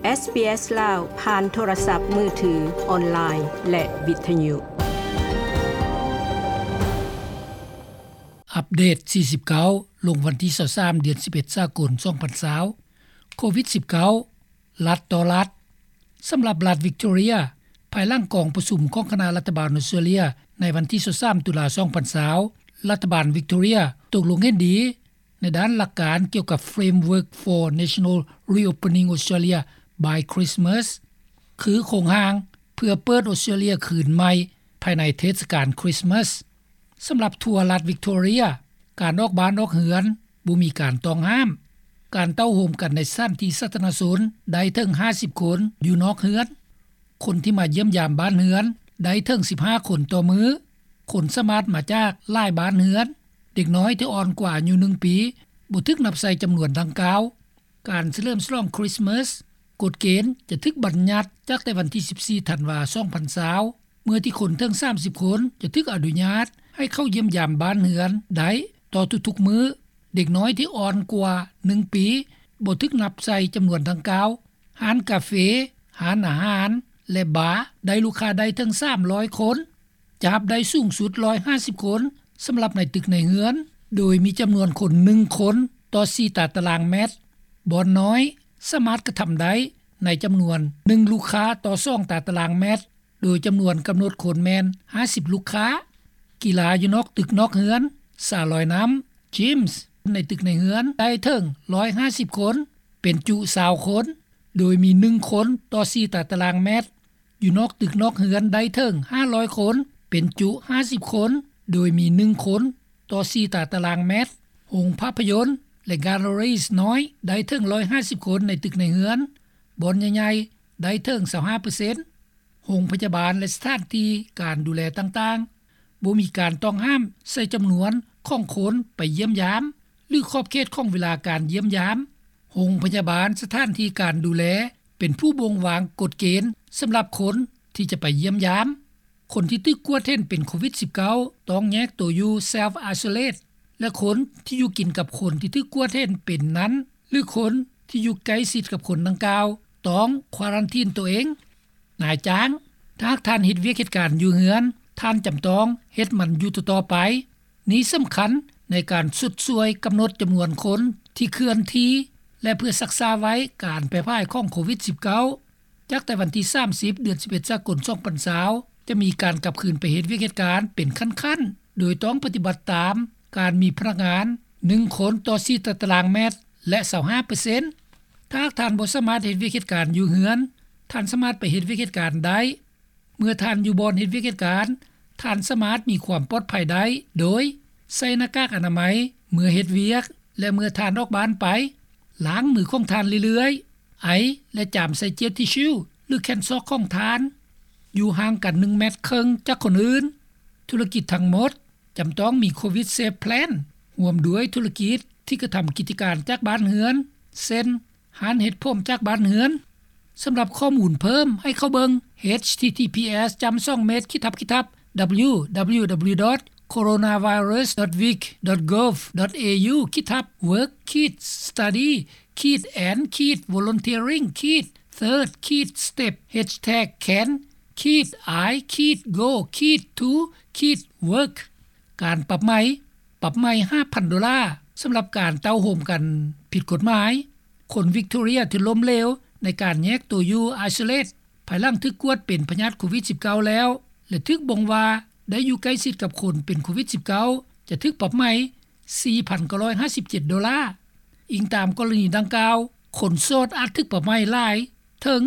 ເອສບີເອສ ລາວ ຜ່ານໂທລະສັບມືຖື, ອອນລາຍ ແລະ ວິທະຍຸ. ອັບເດດສີ່ສິບເກົ້າ ລົງວັນທີຊາວສາມ ເດືອນສິບເອັດ ສາກົນ ສອງພັນຊາວ. ໂຄວິດສິບເກົ້າ ລັດຕໍ່ລັດ. ສຳລັບລັດວິກຕໍເຣຍ, ພາຍຫຼັງກອງປະຊຸມຂອງຄະນະລັດຖະບານອົດສະເຕຣເລຍ ໃນວັນທີຊາວສາມ ຕຸລາ ສອງພັນຊາວ, ລັດຖະບານວິກຕໍເຣຍຕົກລົງເຫັນດີ ໃນດ້ານຫຼັກການກ່ຽວກັບ Framework for National Reopening Australia by Christmas ຄືໂຄງຮ່າງເພື່ອເປີດອົດສະເຕຣເລຍຄືນໃໝ່ພາຍໃນເທດສະການຄຣິສມາສ. ສຳລັບທົ່ວລັດວິກຕໍເຣຍ, ການອອກບ້ານອອກເຮືອນບໍ່ມີການຕ້ອງຫ້າມ. ການເຕົ້າໂຮມກັນໃນສະຖານທີ່ສາທາລະນະຊົນໄດ້ເຖິງຫ້າສິບຄົນຢູ່ນອກເຮືອນ. ຄົນທີ່ມາຢ້ຽມຢາມບ້ານເຮືອນໄດ້ເຖິງສິບຫ້າຄົນຕໍ່ມື້. ຄົນສາມາດມາຈາກຫຼາຍບ້ານເຮືອນ. ເດັກນ້ອຍທີ່ອ່ອນກວ່າອາຍຸໜຶ່ງປີບໍ່ຖືກນັບໃສ່ຈຳນວນດັ່ງກ່າວ. ການສະເຫຼີມສະຫຼອງຄຣິສມາສ, ກົດເກນຈະຖືກບັນຍັດຈາກແຕ່ວັນທີສິບສີ່ ທັນວາ ສອງພັນຊາວ ເມື່ອທີ່ຄົນເຖິງສາມສິບຄົນຈະຖືກອະນຸຍາດໃຫ້ເຂົ້າຢ້ຽມຢາມບ້ານເຮືອນໄດ້ຕໍ່ທຸກໆມື້. ເດັກນ້ອຍທີ່ອ່ອນກວ່າໜຶ່ງປີບໍ່ຖືກນັບໃສ່ຈຳນວນດັ່ງກ່າວ. ຮ້ານກາເຟ, ຮ້ານອາຫານ ແລະ ບາ ໄດ້ລູກຄ້າໄດ້ເຖິງສາມຮ້ອຍຄົນ. ຈະຮັບໄດ້ສູງສຸດຮ້ອຍຫ້າສິບຄົນສຳລັບໃນຕຶກໃນເຮືອນ, ໂດຍມີຈຳນວນຄົນໜຶ່ງຄົນຕໍ່ສີ່ຕາຕະລາງແມັດ. ບ່ອນນ້ອຍສາມາດກະທຳໄດ້ໃນຈຳນວນໜຶ່ງລູກຄ້າຕໍ່ສອງຕາຕະລາງແມັດ, ໂດຍຈຳນວນກຳນົດຄົນແມ່ນຫ້າສິບລູກຄ້າ. ກິລາຢູ່ນອກຕຶກນອກເຮືອນ, ສະລອຍນ້ຳ, ຈິມ ໃນຕຶກໃນເຮືອນໄດ້ເຖິງຮ້ອຍຫ້າສິບຄົນ, ເປັນຈຸຊາວຄົນ, ໂດຍມີໜຶ່ງຄົນຕໍ່ສີ່ຕາຕະລາງແມັດ. ຢູ່ນອກຕຶກນອກເຮືອນໄດ້ເຖິງຫ້າຮ້ອຍຄົນ, ເປັນຈຸຫ້າສິບຄົນ, ໂດຍມີໜຶ່ງຄົນຕໍ່ສີ່ຕາຕະລາງແມັດ. ໂຮງພາບພະຍົນ ແລະ ແກລເລຣີນ້ອຍໄດ້ເຖິງຮ້ອຍຫ້າສິບຄົນໃນຕຶກໃນເຮືອນ. ບ່ອນໃຫຍ່ໆໄດ້ເຖິງຊາວຫ້າເປີເຊັນ. ໂຮງພະຍາບານ ແລະ ສະຖານທີ່ການດູແລຕ່າງໆ ບໍ່ມີການຕ້ອງຫ້າມໃສ່ຈຳນວນຂອງຄົນໄປຢ້ຽມຢາມ ຫຼື ຂອບເຂດຂອງເວລາການຢ້ຽມຢາມ. ໂຮງພະຍາບານ, ສະຖານທີ່ການດູແລ ເປັນຜູ້ບົ່ງວາງກົດເກນສຳລັບຄົນທີ່ຈະໄປຢ້ຽມຢາມ. ຄົນທີ່ຖືກກວດເຫັນເປັນໂຄວິດສິບເກົ້າ ຕ້ອງແຍກໂຕຢູ່ self isolate ແລະ ຄົນທີ່ຢູ່ກິນກັບຄົນທີ່ຖືກກວດເຫັນເປັນນັ້ນ ຫຼື ຄົນທີ່ຢູ່ໃກ້ຊິດກັບຄົນດັ່ງກ່າວ ຕ້ອງຄວາຣັນທີນໂຕເອງ. ນາຍຈ້າງ, ຖ້າຫາກທ່ານເຮັດວຽກເຮັດການຢູ່ເຮືອນ, ທ່ານຈຳຕ້ອງເຮັດມັນຢູ່ຕໍ່ໆໄປ. ນີ້ສຳຄັນໃນການຊົດຊ່ວຍກຳນົດຈຳນວນຄົນທີ່ເຄື່ອນທີ່ ແລະ ເພື່ອຊັກຊ້າໄວ້ການແຜ່ຜາຍຂອງໂຄວິດສິບເກົ້າ. ຈາກແຕ່ວັນທີສາມສິບ ເດືອນສິບເອັດ ສາກົນ ສອງພັນຊາວ ຈະມີການກັບຄືນໄປເຮັດວຽກເຮັດການເປັນຂັ້ນໆ ໂດຍຕ້ອງປະຕິບັດຕາມການມີພະນັກງານໜຶ່ງຄົນຕໍ່ສີ່ຕາຕະລາງແມັດ ແລະ ຊາວຫ້າເປີເຊັນ. ຖ້າຫາກທ່ານບໍ່ສາມາດເຮັດວຽກເຮັດການຢູ່ເຮືອນ, ທ່ານສາມາດໄປເຮັດວຽກເຮັດການໄດ້. ເມື່ອທ່ານຢູ່ບ່ອນເຮັດວຽກເຮັດການ, ທ່ານສາມາດມີຄວາມປອດໄພໄດ້ໂດຍໃສ່ໜ້າກາກອະນາໄມເມື່ອເຮັດວຽກ ແລະ ເມື່ອທ່ານອອກບ້ານໄປ. ລ້າງມືຂອງທ່ານເລື້ອຍໆ, ໄອ ແລະ ຈາມໃສ່ເຈວທິຊູ ຫຼື ແຂນຊອກຂອງທ່ານ. ຢູ່ຫ່າງກັນໜຶ່ງແມັດເຄິ່ງຈາກຄົນອື່ນ. ທຸລະກິດທັງໝົດຈຳຕ້ອງມີ ໂຄວິດ ເຊຟ ແພລນ ຮ່ວມດ້ວຍທຸລະກິດທີ່ກະທຳກິດຈະການຈາກບ້ານເຮືອນ ເຊັ່ນ ຮ້ານເຮັດຜົມຈາກບ້ານເຮືອນ. ສຳລັບຂໍ້ມູນເພີ່ມໃຫ້ເຂົ້າເບິ່ງ ເອຊທີທີພີເອສ ຈ້ຳສອງເມັດ ຂີດທັບ ດັບເບິນຢູດັບເບິນຢູດັບເບິນຢູ ດອດ ໂຄໂຣນາໄວຣັສ ດອດ ວິກ ດອດ ໂກບ ດອດ ເອຢູ ຂີດທັບ ເວີກ ຂີດ ສະຕະດີ ຂີດ ແອນ ຂີດ ໂວລັນເທີຣິງ ຂີດ ເທີດ ຂີດ ສະເຕັບ ແຮັດແທັກ ແຄນ ຂີດ ໄອ ຂີດ ໂກ ຂີດ ທູ ຂີດ ເວີກ. ການປັບໃໝ ປັບໃໝຫ້າພັນໂດລາ ສຳລັບການເຕົ້າໂຮມກັນຜິດກົດໝາຍ. ຄົນວິກຕໍເຣຍທີ່ລົ້ມເຫຼວໃນການແຍກໂຕຢູ່ ໄອໂຊເລດ ພາຍຫຼັງຖືກກວດເປັນພະຍາດໂຄວິດສິບເກົ້າແລ້ວ ແລະ ຖືກບົ່ງວ່າໄດ້ຢູ່ໃກ້ຊິດກັບຄົນເປັນໂຄວິດສິບເກົ້າ ຈະຖືກປັບໃໝສີ່ພັນເກົ້າຮ້ອຍຫ້າສິບເຈັດໂດລາ. ອີງຕາມກໍລະນີດັ່ງກ່າວ, ຄົນໂສດອາດຖືກປັບໃໝຫຼາຍເຖິງ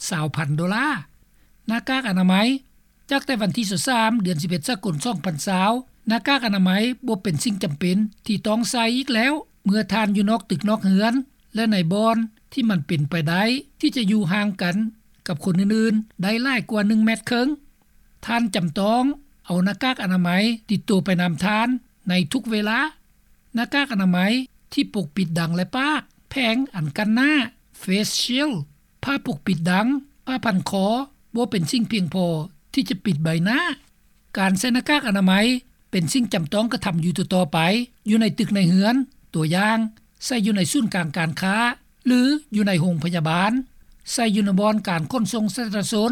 ຊາວພັນໂດລາ. ໜ້າກາກອະນາໄມ ຈາກແຕ່ວັນທີຊາວສາມ ເດືອນສິບເອັດ ສາກົນ ສອງພັນຊາວ, ໜ້າກາກອະນາໄມບໍ່ເປັນສິ່ງຈຳເປັນທີ່ຕ້ອງໃສ່ອີກແລ້ວ ເມື່ອທ່ານຢູ່ນອກຕຶກນອກເຮືອນ ແລະ ໃນບ່ອນທີ່ມັນເປັນໄປໄດ້ທີ່ຈະຢູ່ຫ່າງກັນກັບຄົນອື່ນໆໄດ້ຫຼາຍກວ່າໜຶ່ງແມັດເຄິ່ງ. ທ່ານຈຳຕ້ອງເອົາໜ້າກາກອະນາໄມຕິດຕົວໄປນຳທ່ານໃນທຸກເວລາ. ໜ້າກາກອະນາໄມທີ່ປົກປິດດັງ ແລະ ປາກ, ແຜງອັນກັ້ນໜ້າ, ເຟສຊິວ, ຜ້າປົກປິດດັງ, ຜ້າພັນຄໍ ບໍ່ເປັນສິ່ງພຽງພໍທີ່ຈະປິດໃບໜ້າ. ການໃສ່ໜ້າກາກອະນາໄມເປັນສິ່ງຈຳຕ້ອງກະທຳຢູ່ຕໍ່ໆໄປ ຢູ່ໃນຕຶກໃນເຮືອນ, ຕົວຢ່າງ, ໃສ່ຢູ່ໃນສູນກາງການຄ້າ ຫຼື ຢູ່ໃນໂຮງພະຍາບານ. ໃສ່ຢູ່ໃນບ່ອນການຂົນສົ່ງສາທາລະນະຊົນ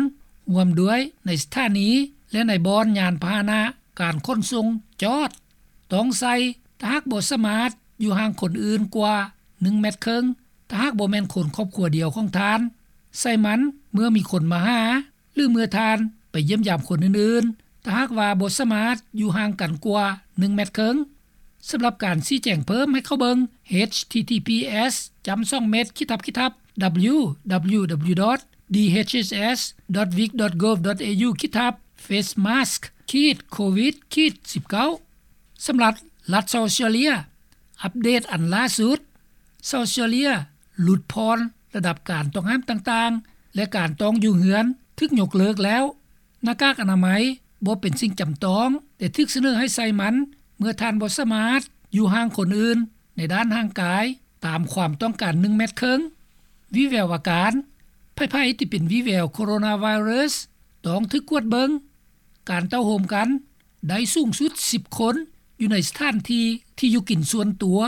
ຮ່ວມດ້ວຍໃນສະຖານີ ແລະ ໃນບ່ອນຍານພາຫະນະການຂົນສົ່ງຈອດ. ຕ້ອງໃສ່ ຖ້າຫາກບໍ່ສາມາດຢູ່ຫ່າງຄົນອື່ນກວ່າໜຶ່ງແມັດເຄິ່ງ ຖ້າຫາກບໍ່ແມ່ນຄົນຄອບຄົວດຽວຂອງທ່ານ. ໃສ່ມັນເມື່ອມີຄົນມາຫາ ຫຼື ເມື່ອທ່ານໄປຢ້ຽມຢາມຄົນອື່ນໆ ຖ້າຫາກວ່າບໍ່ສາມາດຢູ່ຫ່າງກັນກວ່າໜຶ່ງແມັດເຄິ່ງ. ສຳລັບການຊີ້ແຈງເພີ່ມໃຫ້ເຂົ້າເບິ່ງ ເອດເອັດຊີທີພີເອັດສ ຈ້ຳສອງເມັດ ຂີດທັບ ຂີດທັບ ດັບເບິນຢູ ດັບເບິນຢູ ດັບເບິນຢູ ດອດ ດີເອັດເອັດເອັດສ ດອດ ວິກ ດອດ ໂກບ ດອດ ເອຢູ ຂີດທັບ ເຟສມາສ ຂີດ ໂຄວິດ ຂີດ ສິບເກົ້າ. ສຳລັບລັດເຊົາເຊຍເລຍ ອັບເດດອັນລ່າສຸດ ເຊົາເຊຍເລຍຫຼຸດຜ່ອນລະດັບການຕ້ອງຫ້າມຕ່າງໆ ແລະ ການຕ້ອງຢູ່ເຮືອນຖືກຍົກເລີກແລ້ວ. ໜ້າກາກອະນາໄມບໍ່ເປັນສິ່ງຈຳຕ້ອງ ແຕ່ຖືກສະເໜີໃຫ້ໃສ່ມັນເມື່ອທ່ານບໍ່ສາມາດຢູ່ຫ່າງຄົນອື່ນໃນດ້ານຮ່າງກາຍຕາມຄວາມຕ້ອງການໜຶ່ງແມັດເຄິ່ງ. ວີແວວອາການ ໃຜໆທີ່ເປັນວີແວວໂຄໂຣນາໄວຣັສຕ້ອງຖືກກວດເບິ່ງ. ການເຕົ້າໂຮມກັນໄດ້ສູງສຸດສິບຄົນ ຢູ່ໃນສະຖານທີ່ທີ່ຢູ່ກິນສ່ວນຕົວ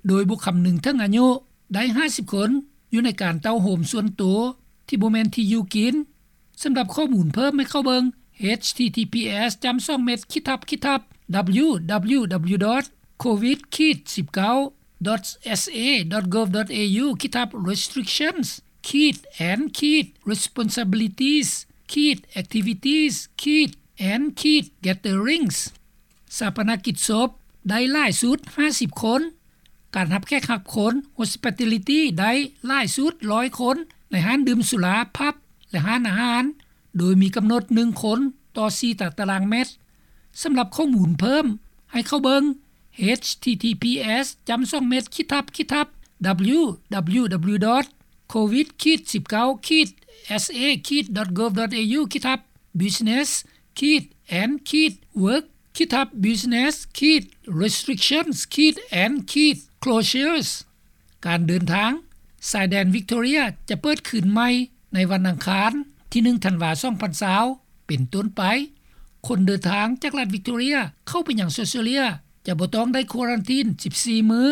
ໂດຍບໍ່ຄຳນຶງເຖິງອາຍຸ. ໄດ້ຫ້າສິບຄົນ ຢູ່ໃນການເຕົ້າໂຮມສ່ວນຕົວທີ່ບໍ່ແມ່ນທີ່ຢູ່ກິນ. ສຳລັບຂໍ້ມູນເພີ່ມໃຫ້ເຂົ້າເບິ່ງ ເອດເອັດຊີທີພີເອັດສ ຈ້ຳສອງເມັດ ຂີດທັບ ຂີດທັບ ດັບເບິນຢູ ດັບເບິນຢູ ດັບເບິນຢູ ດອດ ໂຄວິດ ຂີດ ສິບເກົ້າ ດອດ ເອສເອ ດອດ ໂກບ ດອດ ເອຢູ ຂີດທັບ ເຣສຕຣິກຊັນ ຂີດ ແອນ ຂີດ ເຣສປອນຊາບິລິຕີສ ຂີດ ແອັກທິວິຕີສ ຂີດ ແອນ ຂີດ ແກດເທີຣິງສ໌. ຊາປະນະກິດສົບໄດ້ຫຼາຍສຸດຫ້າສິບຄົນ. ການຮັບແຂກຮັບຄົນ ໂຮສປິດຕາລິຕີ ໄດ້ຫຼາຍສຸດຮ້ອຍຄົນ ໃນຮ້ານດື່ມສຸລາ ພັບ ແລະ ຮ້ານອາຫານ ໂດຍມີກຳນົດໜຶ່ງຄົນຕໍ່ສີ່ຕາຕະລາງແມັດ. ສຳລັບຂໍ້ມູນເພີ່ມໃຫ້ເຂົ້າເບິ່ງ ເອດເອັດຊີທີພີເອັດສ ຈ້ຳສອງເມັດ ຂີດທັບ ຂີດທັບ ດັບເບິນຢູ ດັບເບິນຢູ ດັບເບິນຢູ ດອດ ໂຄວິດ ຂີດ ສິບເກົ້າ ຂີດ ເອສເອ ຂີດ ດອດ ໂກບ ດອດ ເອຢູ ຂີດທັບ ບິສເນັສ ຂີດ ແອນ ຂີດ ເວີກ ຂີດທັບ ບິສເນັສ ຂີດ ເຣສຕຣິກຊັນ ຂີດ ແອນ ຂີດ ໂຄລເຊີສ. ການເດີນທາງ ຊາຍແດນວິກຕໍເຣຍຈະເປີດຄືນໃໝ່ໃນວັນອັງຄານທີໜຶ່ງ ທັນວາ ສອງພັນຊາວ ເປັນຕົ້ນໄປ. ຄົນເດີນທາງຈາກລັດວິກຕໍເຣຍເຂົ້າໄປຍັງເຊົາເຊຍເລຍ ຈະບໍ່ຕ້ອງໄດ້ຄວາຣັນທີນສິບສີ່ມື້.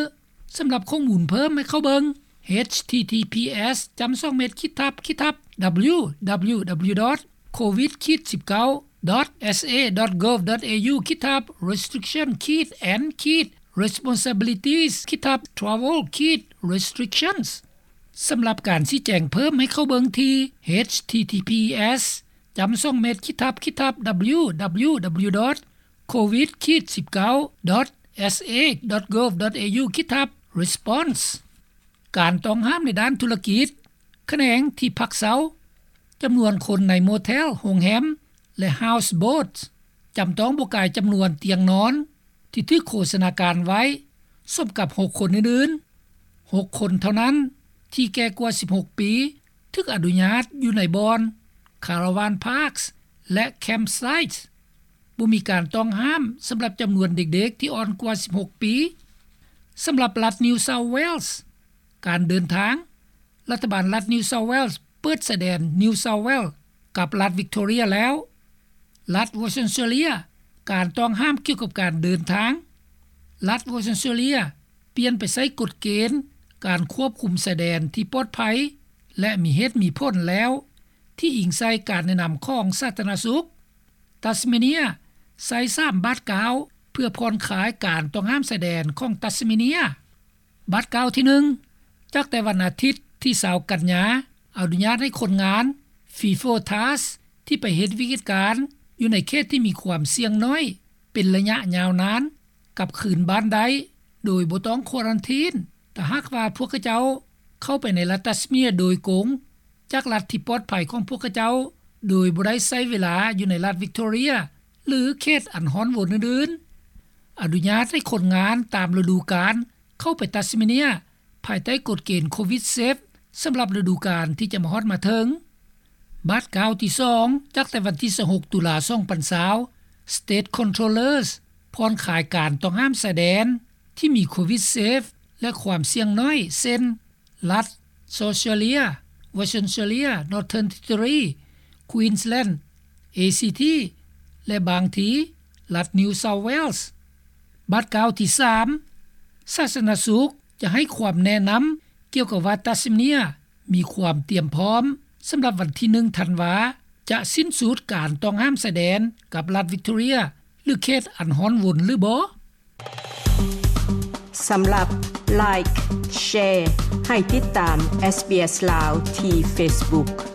ສຳລັບຂໍ້ມູນເພີ່ມໃຫ້ເຂົ້າເບິ່ງ ເອດເອັດຊີທີພີເອັດສ ຈ້ຳສອງເມັດ ຂີດທັບ ຂີດທັບ ດັບເບິນຢູ ດັບເບິນຢູ ດັບເບິນຢູ ດອດ ໂຄວິດ ຂີດ ສິບເກົ້າ ດອດ ເອສເອ ດອດ ໂກບ ດອດ ເອຢູ ຂີດທັບ ເຣສຕຣິກຊັນ ຂີດ ແອນ ຂີດ ເຣສປອນຊາບິລິຕີສ ຂີດທັບ ທຣາເວລ ຂີດ ເຣສຕຣິກຊັນ. ສຳລັບການຊີ້ແຈງເພີ່ມໃຫ້ເຂົ້າເບິ່ງທີ່ ເອດເອັດຊີທີພີເອັດສ ຈ້ຳສອງເມັດ ຂີດທັບ ຂີດທັບ ດັບເບິນຢູ ດັບເບິນຢູ ດັບເບິນຢູ ດອດ ໂຄວິດ ຂີດ ສິບເກົ້າ ດອດ ເອສເອ ດອດ ໂກບ ດອດ ເອຢູ ຂີດທັບ ເຣສປອນ. ການຕ້ອງຫ້າມໃນດ້ານທຸລະກິດ ຂະແໜງທີ່ພັກເຊົາ. ຈຳນວນຄົນໃນໂມເທລ, ໂຮງແຮມ ແລະ ເຮົາສ໌ໂບດ ຈຳຕ້ອງບໍ່ກາຍຈຳນວນຕຽງນອນທີ່ຖືກໂຄສະນາການໄວ້ ສົມກັບຫົກຄົນອື່ນໆ. ຫົກຄົນເທົ່ານັ້ນທີ່ແກ່ກວ່າສິບຫົກປີ ຖືກອະນຸຍາດຢູ່ໃນບ່ອນ ຄາຣາວານພາກ ແລະ ແຄມໄຊ. ບໍ່ມີການຕ້ອງຫ້າມສຳລັບຈຳນວນເດັກໆທີ່ອ່ອນກວ່າສິບຫົກປີ. ສຳລັບລັດ New South Wales ການເດີນທາງ, ລັດຖະບານລັດ New South Wales ເປີດຊາຍແດນ New South Wales ກັບລັດ Victoria ແລ້ວ. ລັດ Western Australia ການຕ້ອງຫ້າມກ່ຽວກັບການເດີນທາງ. ລັດ Western Australia ປ່ຽນໄປໃຊ້ກົດເກນການຄວບຄຸມຊາຍແດນທີ່ປອດໄພ ແລະ ມີເຫດມີຜົນແລ້ວ ທີ່ອີງໃສ່ການແນະນຳຂອງສາທາລະນະສຸກ. Tasmania ໃຊ້ສາມບາດກ້າວເພື່ອຜ່ອນຄາຍການຕ້ອງຫ້າມຊາຍແດນຂອງ Tasmania. ບາດກ້າວທີໜຶ່ງ ຈາກແຕ່ວັນອາທິດທີຊາວກັນຍາ ອະນຸຍາດໃຫ້ຄົນງານ FIFO TARS ທີ່ໄປເຮັດວຽກເຮັດການຢູ່ໃນເຂດທີ່ມີຄວາມສ່ຽງໜ້ອຍເປັນໄລຍະຍາວນານ ກັບຄືນບ້ານໄດ້ໂດຍບໍ່ຕ້ອງຄວາຣັນທີນ ຖ້າຫາກວ່າພວກເຂົາເຈົ້າເຂົ້າໄປໃນລັດ Tasmania ໂດຍກົງ ຈາກລັດທີ່ປອດໄພຂອງພວກເຂົາເຈົ້າ ໂດຍບໍ່ໄດ້ໃຊ້ເວລາຢູ່ໃນລັດ Victoria ຫຼື ເຂດອັນຮ້ອນວອນອື່ນໆ. ອະນຸຍາດໃຫ້ຄົນງານຕາມລະດູການເຂົ້າໄປ Tasmania ພາຍໃຕ້ກົດເກນ ໂຄວິດເຊຟ ສຳລັບລະດູການທີ່ຈະມາຮອດມາເຖິງ. ບາດກ້າວທີສອງ ຈາກແຕ່ວັນທີຊາວຫົກ ຕຸລາ ສອງພັນຊາວ State Controllers ຜ່ອນຄາຍການຕ້ອງຫ້າມຊາຍແດນທີ່ມີໂຄວິດເຊຟ ແລະ ຄວາມສ່ຽງໜ້ອຍ ເຊັ່ນ ລັດ South Australia, Western Australia, Northern Territory, Queensland, ACT ແລະ ບາງທີ ລັດ New South Wales. ບາດກ້າວທີສາມ ສາທາລະນະສຸກຈະໃຫ້ຄວາມແນະນຳກ່ຽວກັບວ່າ Tasmania ມີຄວາມຕຣຽມພ້ອມ ສຳລັບວັນທີໜຶ່ງທັນວາ ຈະສິ້ນສຸດການຕ້ອງຫ້າມຊາຍແດນ ກັບລັດວິກຕໍເຣັຽ ຫຼືເຂດອັນຮ້ອນວົນຫຼືບໍ່? ສຳລັບ Like Share ໃຫ້ຕິດຕາມ SBS Lao ທີ່ Facebook.